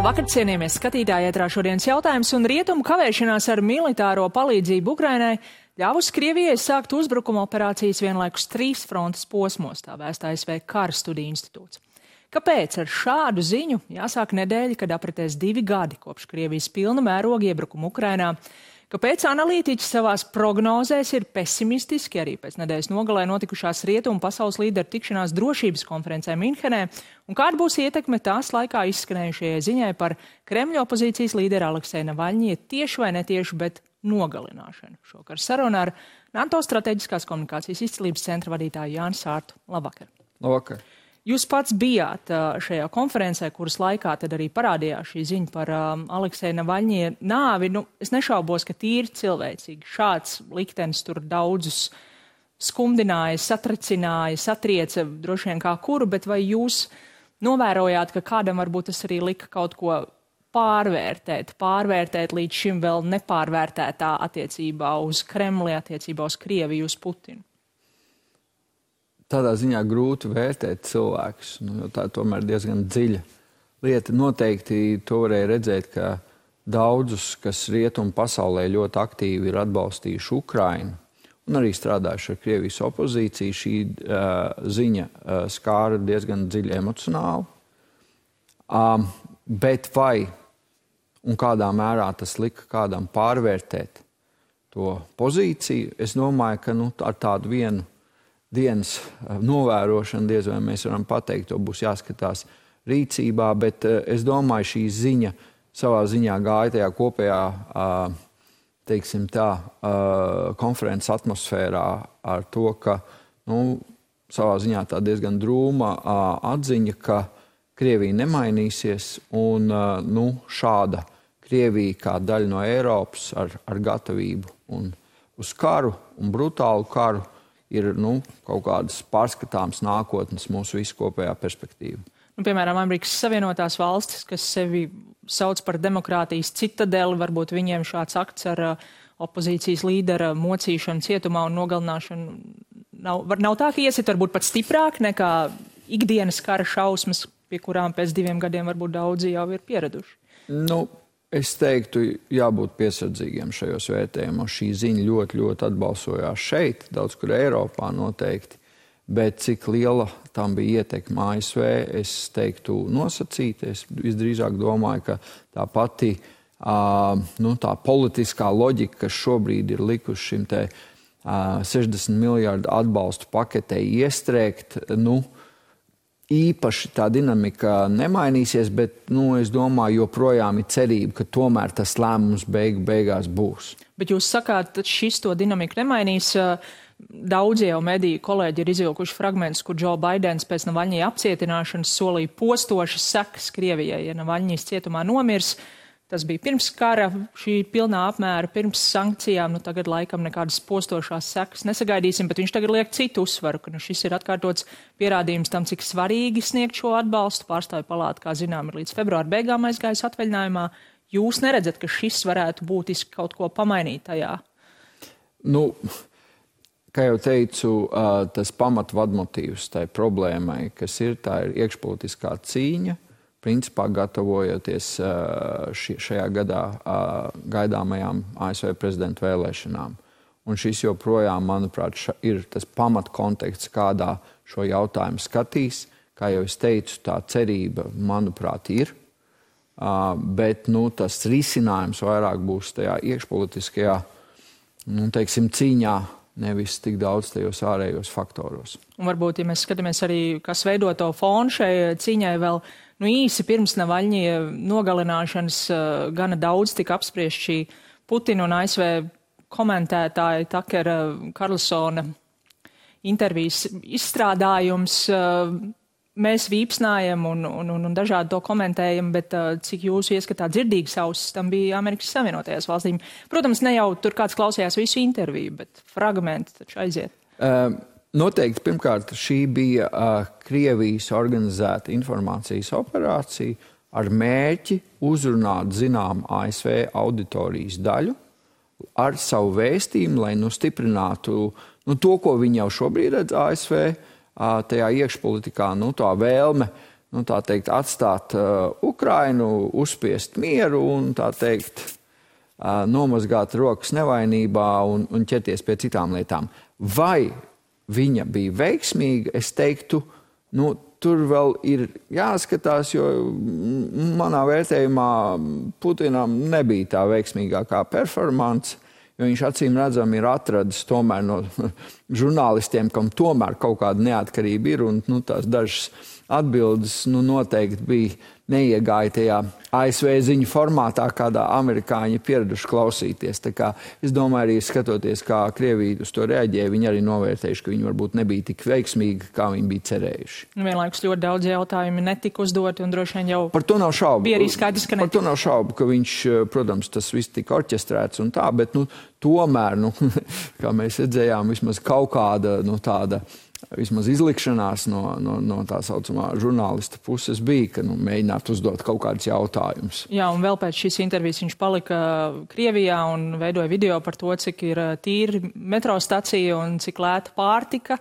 Labvakar, cienījamies skatītāji, ētrā šodienas jautājums un rietumu kavēšanās ar militāro palīdzību Ukrainai ļāvusi Krievijai sākt uzbrukuma operācijas vienlaikus 3 frontes posmos, tā vēsta ASV Kara studiju institūts. Kāpēc ar šādu ziņu jāsāk nedēļa, kad apritēs 2 gadi kopš Krievijas pilna mēroga iebrukuma Ukrainā? Kāpēc analītiķi savās prognozēs ir pesimistiski arī pēc nedēļas nogalē notikušās rietumu pasaules līderu tikšanās drošības konferencē Minhenē? Un kāda būs ietekme tās laikā izskanējušajai ziņai par Kremļa opozīcijas līderu Alekseja Navaļņija tieši vai netieši, bet nogalināšanu? Šokar saruna ar NATO strateģiskās komunikācijas izcilības centra vadītāju Jāni Sārtu. Labvakar! Labvakar! Jūs pats bijāt šajā konferencē, kuras laikā tad arī parādījās šī ziņa par Alekseja Navaļņija nāvi. Es nešaubos, ka tīri cilvēcīgi šāds liktenis tur daudzus skumdināja, satricināja, satrieca droši vien kā kuru, bet vai jūs novērojāt, ka kādam varbūt tas arī lika kaut ko pārvērtēt līdz šim vēl nepārvērtētā attiecībā uz Kremli, attiecībā uz Krieviju, uz Putinu? Tādā ziņā grūti vērtēt cilvēkus, jo tā tomēr diezgan dziļa lieta. Noteikti to varēja redzēt, ka daudzus, kas rietumu pasaulē ļoti aktīvi ir atbalstījuši Ukrainu un arī strādājuši ar Krievijas opozīciju, šī ziņa skāra diezgan dziļi emocionāli. Bet vai un kādā mērā tas lika kādam pārvērtēt to pozīciju, es domāju, ka ar tādu vienu dienas novērošana, diez vai mēs varam pateikt, to būs jāskatās rīcībā, bet es domāju, šī ziņa savā ziņā gāja tajā kopējā, teiksim tā, konferences atmosfērā ar to, ka, savā ziņā tā diezgan drūma atziņa, ka Krievija nemainīsies un, šāda Krievija kā daļa no Eiropas ar gatavību un uz karu un brutālu karu ir kaut kādas pārskatāmas nākotnes mūsu visu kopējā perspektīva. Piemēram, Amerikas Savienotās valstis, kas sevi sauc par demokrātijas citadeli, varbūt viņiem šāds akts ar opozīcijas līdera mocīšanu cietumā un nogalināšanu nav tā, ka iesit varbūt pat stiprāk nekā ikdienas kara šausmas, pie kurām pēc 2 gadiem varbūt daudzi jau ir pieraduši. Es teiktu, jābūt piesardzīgiem šajos vērtējumos. Šī ziņa ļoti, ļoti atbalsojās šeit, daudz kur Eiropā noteikti, bet cik liela tam bija ietekme ASV, es teiktu nosacīti. Es visdrīzāk domāju, ka tā pati tā politiskā loģika, kas šobrīd ir likuši šim te 60 miljardu atbalstu paketei iestrēgt, īpaši tā dinamika nemainīsies, bet, es domāju, joprojām ir cerība, ka tomēr tas lēmums beigās būs. Bet jūs sakāt, ka šis to dinamiku nemainīs. Daudzi jau mediju kolēģi ir izvilkuši fragmentus, kur Džo Baidens pēc Navaļņija apcietināšanas solīja postošas sekas Krievijai, ja Navaļņijs cietumā nomirs. Tas bija pirms kara, šī pilnā apmēra, pirms sankcijām, tagad laikam nekādas postošās sekas nesagaidīsim, bet viņš tagad liek citu uzsvaru, ka šis ir atkārtots pierādījums tam, cik svarīgi sniegt šo atbalstu. Pārstāvju palāta, kā zinām, ir līdz februāra beigām aizgājis atvaļinājumā. Jūs neredzat, ka šis varētu būtiski kaut ko pamainīt tajā? Kā jau teicu, tas pamatvadmotīvs tai problēmai, kas tā ir iekšpolitiskā cīņa, principā gatavojoties šajā gadā gaidāmajām ASV prezidenta vēlēšanām. Un šis joprojām, manuprāt, ir tas pamatkonteksts, kādā šo jautājumu skatīs. Kā jau es teicu, tā cerība, manuprāt, ir. Bet tas risinājums vairāk būs tajā iekšpolitiskajā, cīņā, nevis tik daudz tajos ārējos faktoros. Un varbūt, ja mēs skatāmies arī, kas veido to fonu šai cīņai vēl, īsi pirms Navaļņija nogalināšanas gana daudz tika apspriest šī Putina un ASV komentētāja Takera Karlsona intervijas izstrādājums. Mēs vīpsnājam un dažādi to komentējam, bet cik jūsu ieskatā dzirdīgs ausis tam bija Amerikas Savienotajās valstīm. Protams, ne jau tur kāds klausījās visu interviju, bet fragmenti taču aiziet. Noteikti, pirmkārt, šī bija Krievijas organizēta informācijas operācija ar mērķi uzrunāt ASV auditorijas daļu ar savu vēstījumu, lai stiprinātu to, ko viņi jau šobrīd redz ASV, tajā iekšpolitikā, tā vēlme tā teikt, atstāt Ukrainu, uzspiest mieru un, tā teikt, nomazgāt rokas nevainībā un ķerties pie citām lietām. Vai viņa bija veiksmīga? Es teiktu, tur vēl ir jāskatās, jo manā vērtējumā Putinam nebija tā veiksmīgākā performance, jo viņš acīm redzam ir atradis tomēr no žurnālistiem, kam tomēr kaut kāda neatkarība ir, un tās dažas atbildes noteikti bija neiegāja tajā ASV ziņu formātā, kādā amerikāņi pieraduši klausīties. Tā kā es domāju, arī skatoties, kā Krievija uz to reaģēja, viņi arī novērtējuši, ka viņi varbūt nebija tik veiksmīgi, kā viņi bija cerējuši. Vienlaikus ļoti daudz jautājumi netika uzdoti, un droši vien jau par to nav šaubu. Bija arī skaidrs, ka netika. Par to nav šaubu, ka viņš, protams, tas viss tika orķestrēts un tā, bet tomēr, kā mēs redzējām, vismaz kaut kāda tāda vismaz izlikšanās no tā saucamā žurnālista puses bija, ka mēģināt uzdot kaut kādus jautājumus. Jā, un vēl pēc šīs intervijas viņš palika Krievijā un veidoja video par to, cik ir tīri metro stacija un cik lēta pārtika.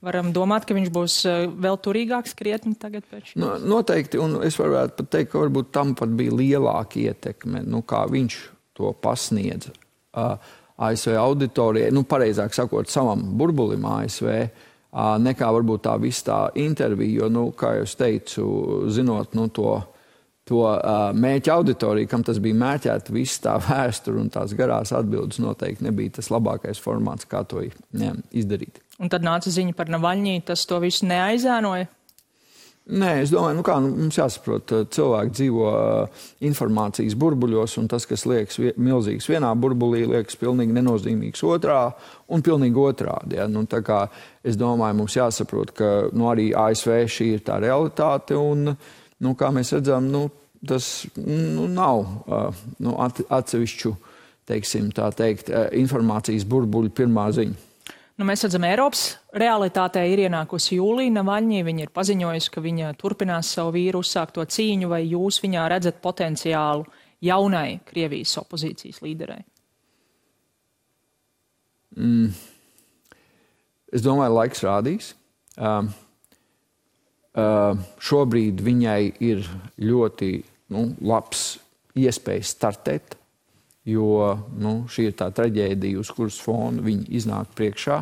Varam domāt, ka viņš būs vēl turīgāks krietni tagad pēc šīs? Noteikti, un es varētu pat teikt, ka varbūt tam pat bija lielāka ietekme, kā viņš to pasniedza ASV auditorijai, pareizāk sakot, savam burbulim ASV, nekā varbūt tā viss tā intervija, jo, kā jau es teicu, zinot, to mērķa auditoriju, kam tas bija mērķēta, viss tā vēsture un tās garās atbildes noteikti nebija tas labākais formāts, kā to izdarīt. Un tad nāca ziņa par Navaļņī, tas to visu neaizēnoja? Nē, es domāju, mums jāsaprot, cilvēki dzīvo informācijas burbuļos, un tas, kas liekas milzīgs vienā burbulī, liekas pilnīgi nenozīmīgs otrā un pilnīgi otrādi. Ja? Tā kā es domāju, mums jāsaprot, ka arī ASV šī ir tā realitāte, un, kā mēs redzam, tas nav atsevišķu, teiksim, tā teikt, informācijas burbuļu pirmā ziņa. Mēs redzam, Eiropas realitātē ir ienākusi Jūlija Navaļņī. Viņa ir paziņojusi, ka viņa turpinās savu vīru uzsākto cīņu, vai jūs viņā redzat potenciālu jaunai Krievijas opozīcijas līderei? Es domāju, laiks rādīs. Šobrīd viņai ir ļoti labs iespējas startēt, jo šī ir tā traģēdija, uz kuras fona viņa iznāk priekšā.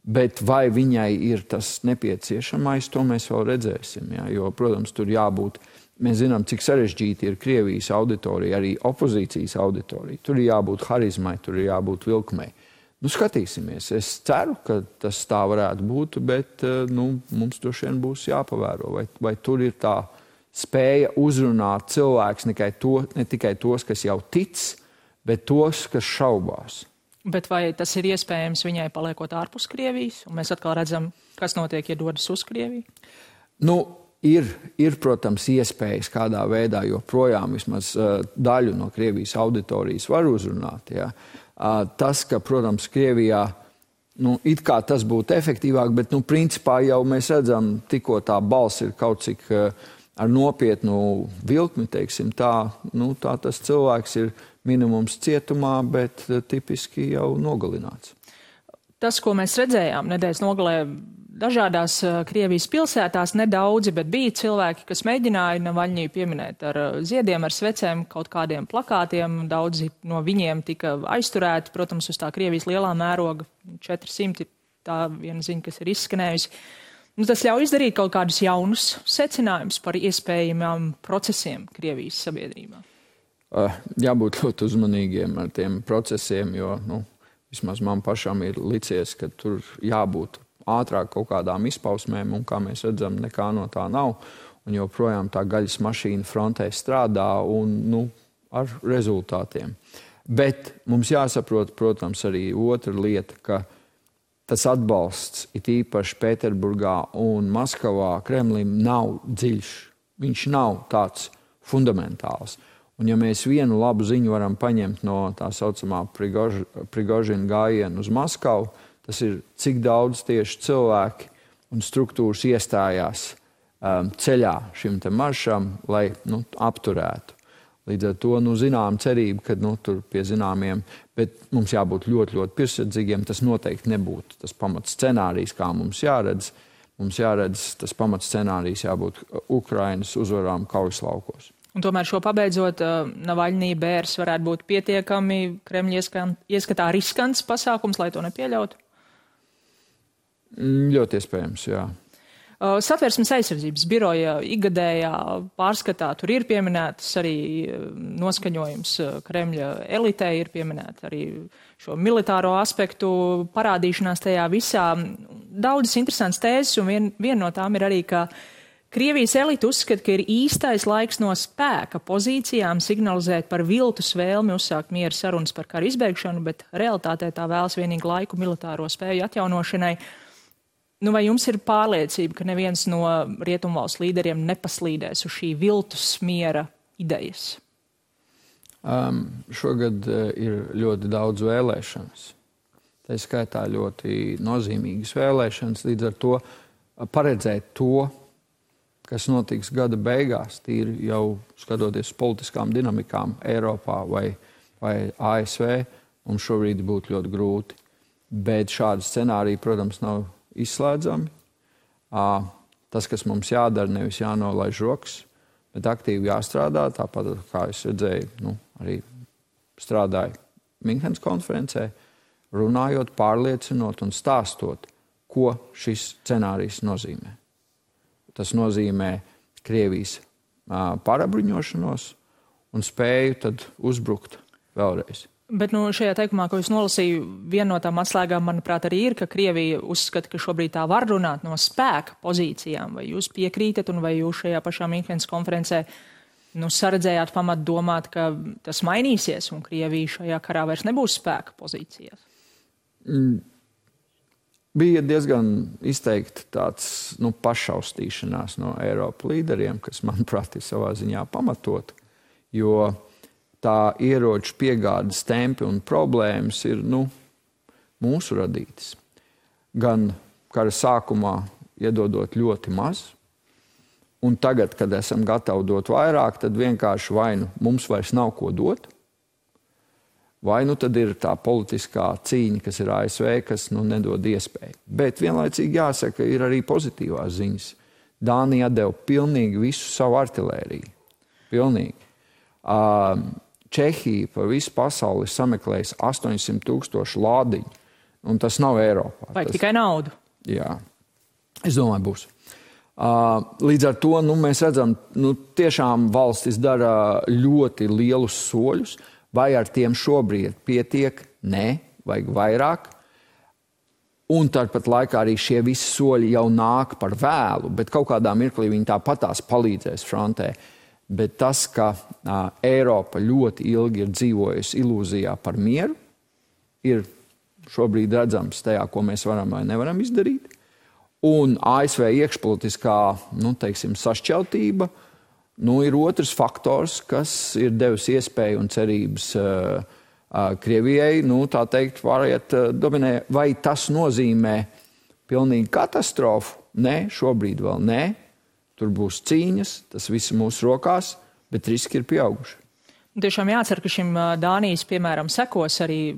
Bet vai viņai ir tas nepieciešamais, to mēs vēl redzēsim. Ja? Jo, protams, tur jābūt, mēs zinām, cik sarežģīti ir Krievijas auditorija, arī opozīcijas auditorija. Tur ir jābūt harizmai, tur ir jābūt vilkmei. Skatīsimies. Es ceru, ka tas tā varētu būt, bet mums droši vien būs jāpavēro, vai tur ir tā spēja uzrunāt cilvēks ne tikai tos, kas jau tic, bet tos, kas šaubās. Bet vai tas ir iespējams viņai paliekot ārpus Krievijas? Un mēs atkal redzam, kas notiek, ja dodas uz Krieviju? Ir, protams, iespējas kādā veidā, jo projām vismaz daļu no Krievijas auditorijas var uzrunāt. Ja? Tas, ka, protams, Krievijā it kā tas būtu efektīvāk, bet principā jau mēs redzam, tikko tā balss ir kaut cik ar nopietnu vilkmi, teiksim, tā tas cilvēks ir minimums cietumā, bet tipiski jau nogalināts. Tas, ko mēs redzējām nedēļas nogalē dažādās Krievijas pilsētās, nedaudzi, bet bija cilvēki, kas mēģināja Navaļņiju pieminēt ar ziediem, ar svecēm, kaut kādiem plakātiem. Daudzi no viņiem tika aizturēti, protams, uz tā Krievijas lielā mēroga 400, tā viena ziņa, kas ir izskanējusi. Tas ļauj izdarīt kaut kādus jaunus secinājumus par iespējamām procesiem Krievijas sabiedrībā. Jābūt ļoti uzmanīgiem ar tiem procesiem, jo vismaz man pašam ir licies, ka tur jābūt ātrāk kaut kādām izpausmēm, un kā mēs redzam, nekā no tā nav. Un joprojām tā gaļas mašīna frontē strādā un ar rezultātiem. Bet mums jāsaprot, protams, arī otra lieta, ka tas atbalsts, it īpaši Pēterburgā un Maskavā, Kremlim nav dziļš. Viņš nav tāds fundamentāls. Un ja mēs vienu labu ziņu varam paņemt no tā saucamā Prigožina gājiena uz Maskavu, tas ir, cik daudz tieši cilvēki un struktūras iestājās ceļā šim te maršam, lai apturētu. Līdz ar to, zinām cerību, ka tur pie zināmiem, bet mums jābūt ļoti, ļoti piesardzīgiem. Tas noteikti nebūtu tas pamats scenārijs, kā mums jāredz. mums jāredz tas pamats scenārijs jābūt Ukrainas uzvarām kaujas laukos. Un tomēr šo pabeidzot, Navaļnī bērs varētu būt pietiekami Kremļa ieskatā riskants pasākums, lai to nepieļautu? Ļoti iespējams, jā. Satversmes aizsardzības biroja ikgadējā pārskatā tur ir pieminētas arī noskaņojums Kremļa elitē, ir pieminēta arī šo militāro aspektu parādīšanās tajā visā. Daudzas interesantas tēzes, un viena no tām ir arī, ka Krievijas elite uzskata, ka ir īstais laiks no spēka pozīcijām signalizēt par viltus vēlmi uzsākt miera sarunas par karu izbeigšanu, bet realitātē tā vēlas vienīgi laiku militāro spēju atjaunošanai. Vai jums ir pārliecība, ka neviens no rietumvalstu līderiem nepaslīdēs uz šī viltus miera idejas? Šogad ir ļoti daudz vēlēšanas. Tā skaitā ļoti nozīmīgas vēlēšanas, līdz ar to paredzēt to, kas notiks gada beigās, tīri jau skatoties politiskām dinamikām Eiropā vai ASV, mums šobrīd būtu ļoti grūti. Bet šādi scenāriji, protams, nav izslēdzami. Tas, kas mums jādara, nevis jānolaiž rokas, bet aktīvi jāstrādā. Tāpat, kā es redzēju, arī strādāju Minhenes konferencē, runājot, pārliecinot un stāstot, ko šis scenārijs nozīmē. Tas nozīmē Krievijas pārabruņošanos un spēju tad uzbrukt vēlreiz. Bet šajā teikumā, ko es nolasīju, viena no tām atslēgām, manuprāt, arī ir, ka Krievija uzskata, ka šobrīd tā var runāt no spēka pozīcijām. Vai jūs piekrītat un vai jūs šajā pašā Minhenes konferencē saredzējāt pamat domāt, ka tas mainīsies un Krievija šajā karā vairs nebūs spēka pozīcijās? Bija diezgan izteikti tāds pašaustīšanās no Eiropas līderiem, kas, manuprāt, ir savā ziņā pamatot, jo tā ieroču piegādes tempi un problēmas ir mūsu radītas. Gan kara sākumā iedodot ļoti maz, un tagad, kad esam gatavi dot vairāk, tad vienkārši vai mums vairs nav ko dot, vai tad ir tā politiskā cīņa, kas ir ASV, kas nedod iespēju. Bet vienlaicīgi jāsaka, ir arī pozitīvās ziņas. Dānija atdeva pilnīgi visu savu artilēriju. Pilnīgi. Čehija pa visu pasauli sameklējas 800,000 lādiņu, un tas nav Eiropā. Vai tikai naudu? Jā, es domāju, būs. Līdz ar to mēs redzam, tiešām valstis dara ļoti lielus soļus, vai ar tiem šobrīd pietiek? Nē, vajag vairāk. Un tāpat laikā arī šie visi soļi jau nāk par vēlu, bet kaut kādā mirklī viņi tāpatās palīdzēs frontē. Bet tas, ka Eiropa ļoti ilgi ir dzīvojusi ilūzijā par mieru, ir šobrīd redzams tajā, ko mēs varam vai nevaram izdarīt. Un ASV iekšpolitiskā, sašķeltība, ir otrs faktors, kas ir devis iespēju un cerības Krievijai, tā teikt, variet dominē. Vai tas nozīmē pilnīgi katastrofu? Nē, šobrīd vēl nē. Tur būs cīņas, tas viss mūsu rokās, bet riski ir pieauguši. Tiešām jācer, ka šim Dānijas, piemēram, sekos arī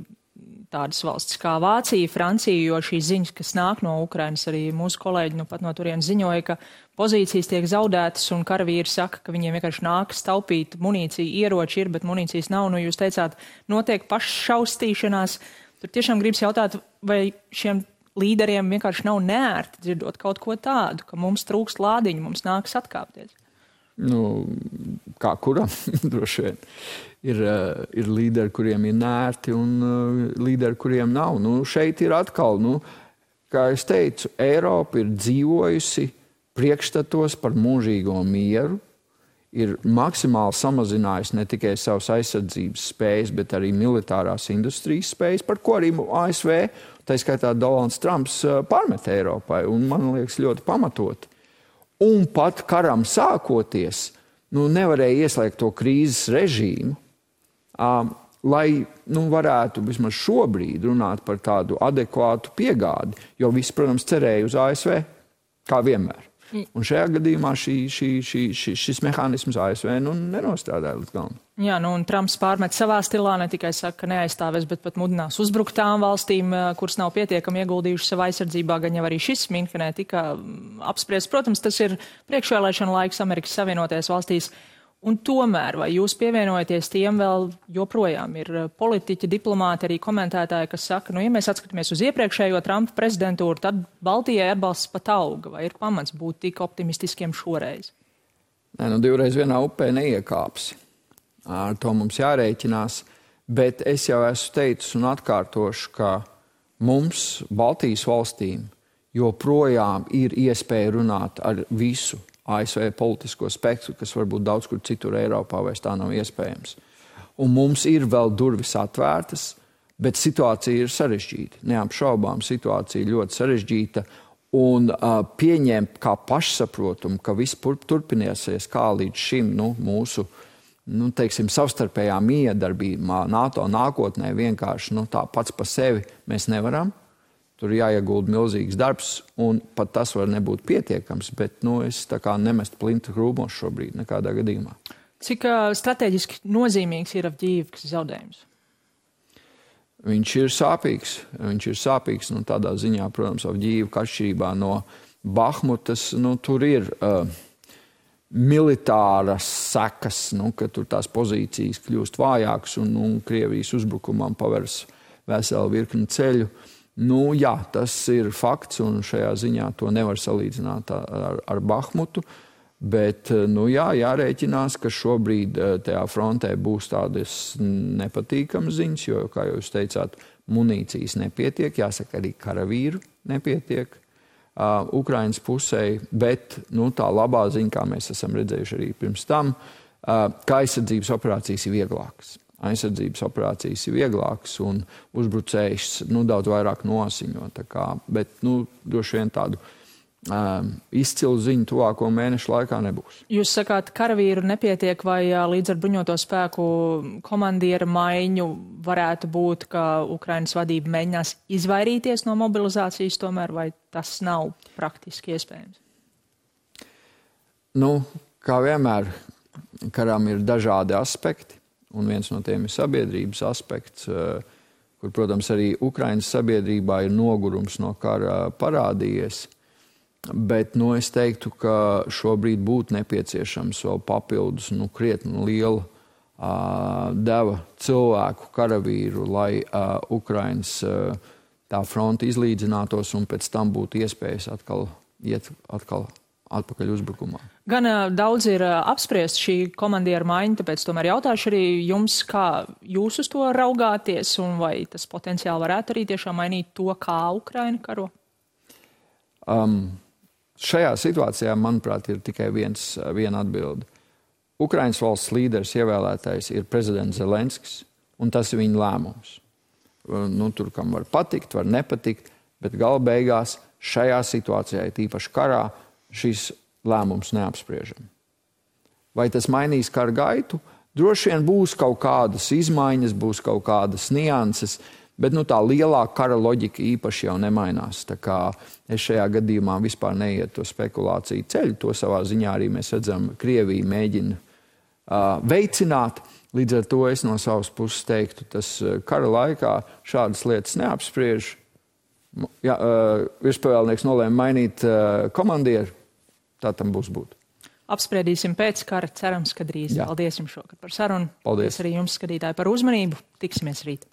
tādas valstis kā Vācija, Francija, jo šīs ziņas, kas nāk no Ukrainas, arī mūsu kolēģi pat no turienes ziņoja, ka pozīcijas tiek zaudētas un karavīri saka, ka viņiem vienkārši nākas taupīt munīciju, ieroči ir, bet munīcijas nav. Jūs teicāt, notiek paššaustīšanās. Tur tiešām gribas jautāt, vai šiem līderiem vienkārši nav neērti dzirdot kaut ko tādu, ka mums trūkst lādiņu, mums nākas atkāpties. Kā kuram droši vien. Ir līderi, kuriem ir neērti, un līderi, kuriem nav. Šeit ir atkal, kā es teicu, Eiropa ir dzīvojusi priekšstatos par mūžīgo mieru, ir maksimāli samazinājusi ne tikai savas aizsardzības spējas, bet arī militārās industrijas spējas, par ko arī ASV, tā skaitā Donalds Trumps, pārmet Eiropai, un man liekas ļoti pamatoti. Un pat karam sākoties, nevarēja ieslēgt to krīzes režīmu, lai varētu vismaz šobrīd runāt par tādu adekvātu piegādi, jo visi, protams, cerēja uz ASV, kā vienmēr. Un šajā gadījumā šis mehānisms ASV nenostrādāja līdz galam. Jā, un Trumps pārmet savā stilā, ne tikai saka, ka neaizstāvēs, bet pat mudinās uzbrukt tām valstīm, kuras nav pietiekami ieguldījušas savā aizsardzībā, gan jau arī šis Minhenē tika apspriests. Protams, tas ir priekšvēlēšana laiks Amerikas Savienotajās valstīs. Un tomēr, vai jūs pievienojaties tiem vēl joprojām ir politiķi, diplomāti, arī komentētāji, kas saka, ja mēs atskatāmies uz iepriekšējo Trumpa prezidentūru, tad Baltijai atbalsts pat auga, vai ir pamats būt tik optimistiskiem šoreiz? Nē, divreiz vienā upē neiekāps. Ar to mums jārēķinās, bet es jau esmu teicis un atkārtošu, ka mums, Baltijas valstīm, joprojām ir iespēja runāt ar visu ASV politisko spektru, kas varbūt daudz kur citur Eiropā vairs tā nav iespējams. Un mums ir vēl durvis atvērtas, bet situācija ir sarežģīta. Neapšaubām situācija ļoti sarežģīta un pieņemt kā pašsaprotumu, ka viss turpināsies kā līdz šim mūsu teiksim, savstarpējā miedarbībā NATO nākotnē vienkārši tā pats pa sevi mēs nevaram. Tur jāiegulda milzīgs darbs, un pat tas var nebūt pietiekams, bet es tā kā nemestu plintu krūmos šobrīd nekādā gadījumā. Cik strateģiski nozīmīgs ir Avdijivkas zaudējums? Viņš ir sāpīgs, tādā ziņā, protams, Avdijivka atšķirībā no Bahmutas, tur ir militāras sekas, ka tur tās pozīcijas kļūst vājākas un Krievijas uzbrukumam paveras veselu virkni ceļu. Jā, tas ir fakts, un šajā ziņā to nevar salīdzināt ar Bahmutu, bet jārēķinās, ka šobrīd tajā frontē būs tādas nepatīkamas ziņas, jo, kā jūs teicāt, munīcijas nepietiek, jāsaka, arī karavīru nepietiek Ukrainas pusē, bet tā labā ziņa, kā mēs esam redzējuši arī pirms tam, ka aizsardzības operācijas ir vieglākas. Aizsardzības operācijas ir vieglākas un uzbrucējs daudz vairāk nosiņo. Bet droši vien tādu izcilu ziņu tuvāko mēnešu laikā nebūs. Jūs sakāt, karavīru nepietiek, vai līdz ar bruņoto spēku komandiera maiņu varētu būt, ka Ukrainas vadība mēģinās izvairīties no mobilizācijas tomēr, vai tas nav praktiski iespējams? Kā vienmēr, karām ir dažādi aspekti. Un viens no tiem ir sabiedrības aspekts, kur, protams, arī Ukrainas sabiedrībā ir nogurums no kara parādījies. Bet es teiktu, ka šobrīd būtu nepieciešams vēl papildus krietni liela deva cilvēku, karavīru, lai Ukrainas tā fronte izlīdzinātos un pēc tam būtu iespējas iet atpakaļ uzbrukumā. Gan daudz ir apspriest šī komandiera maiņa, tāpēc tomēr jautāšu arī jums, kā jūs uz to raugāties un vai tas potenciāli varētu arī tiešām mainīt to, kā Ukraina karo? Šajā situācijā, manuprāt, ir tikai viena atbilde. Ukrainas valsts līderis ievēlētais ir prezidents Zelenskis, un tas ir viņa lēmums. Tur, kam var patikt, var nepatikt, bet gala beigās šajā situācijā, tīpaši karā, šis lēmums neapspriežam. Vai tas mainīs kara gaitu? Droši vien būs kaut kādas izmaiņas, būs kaut kādas nianses, bet tā lielā kara loģika īpaši jau nemainās. Tā kā es šajā gadījumā vispār neietu to spekulāciju ceļu. To savā ziņā arī mēs redzam, Krievija mēģina veicināt. Līdz ar to es no savas puses teiktu, tas kara laikā šādas lietas neapspriež. Virspavēlnieks nolēma mainīt komandieru. Tā tam būs būt. Apspriedīsim pēc kara, cerams, ka drīz. Jā. Paldies jums šokar par sarunu. Paldies. Arī jums, skatītāji, par uzmanību. Tiksimies rīt.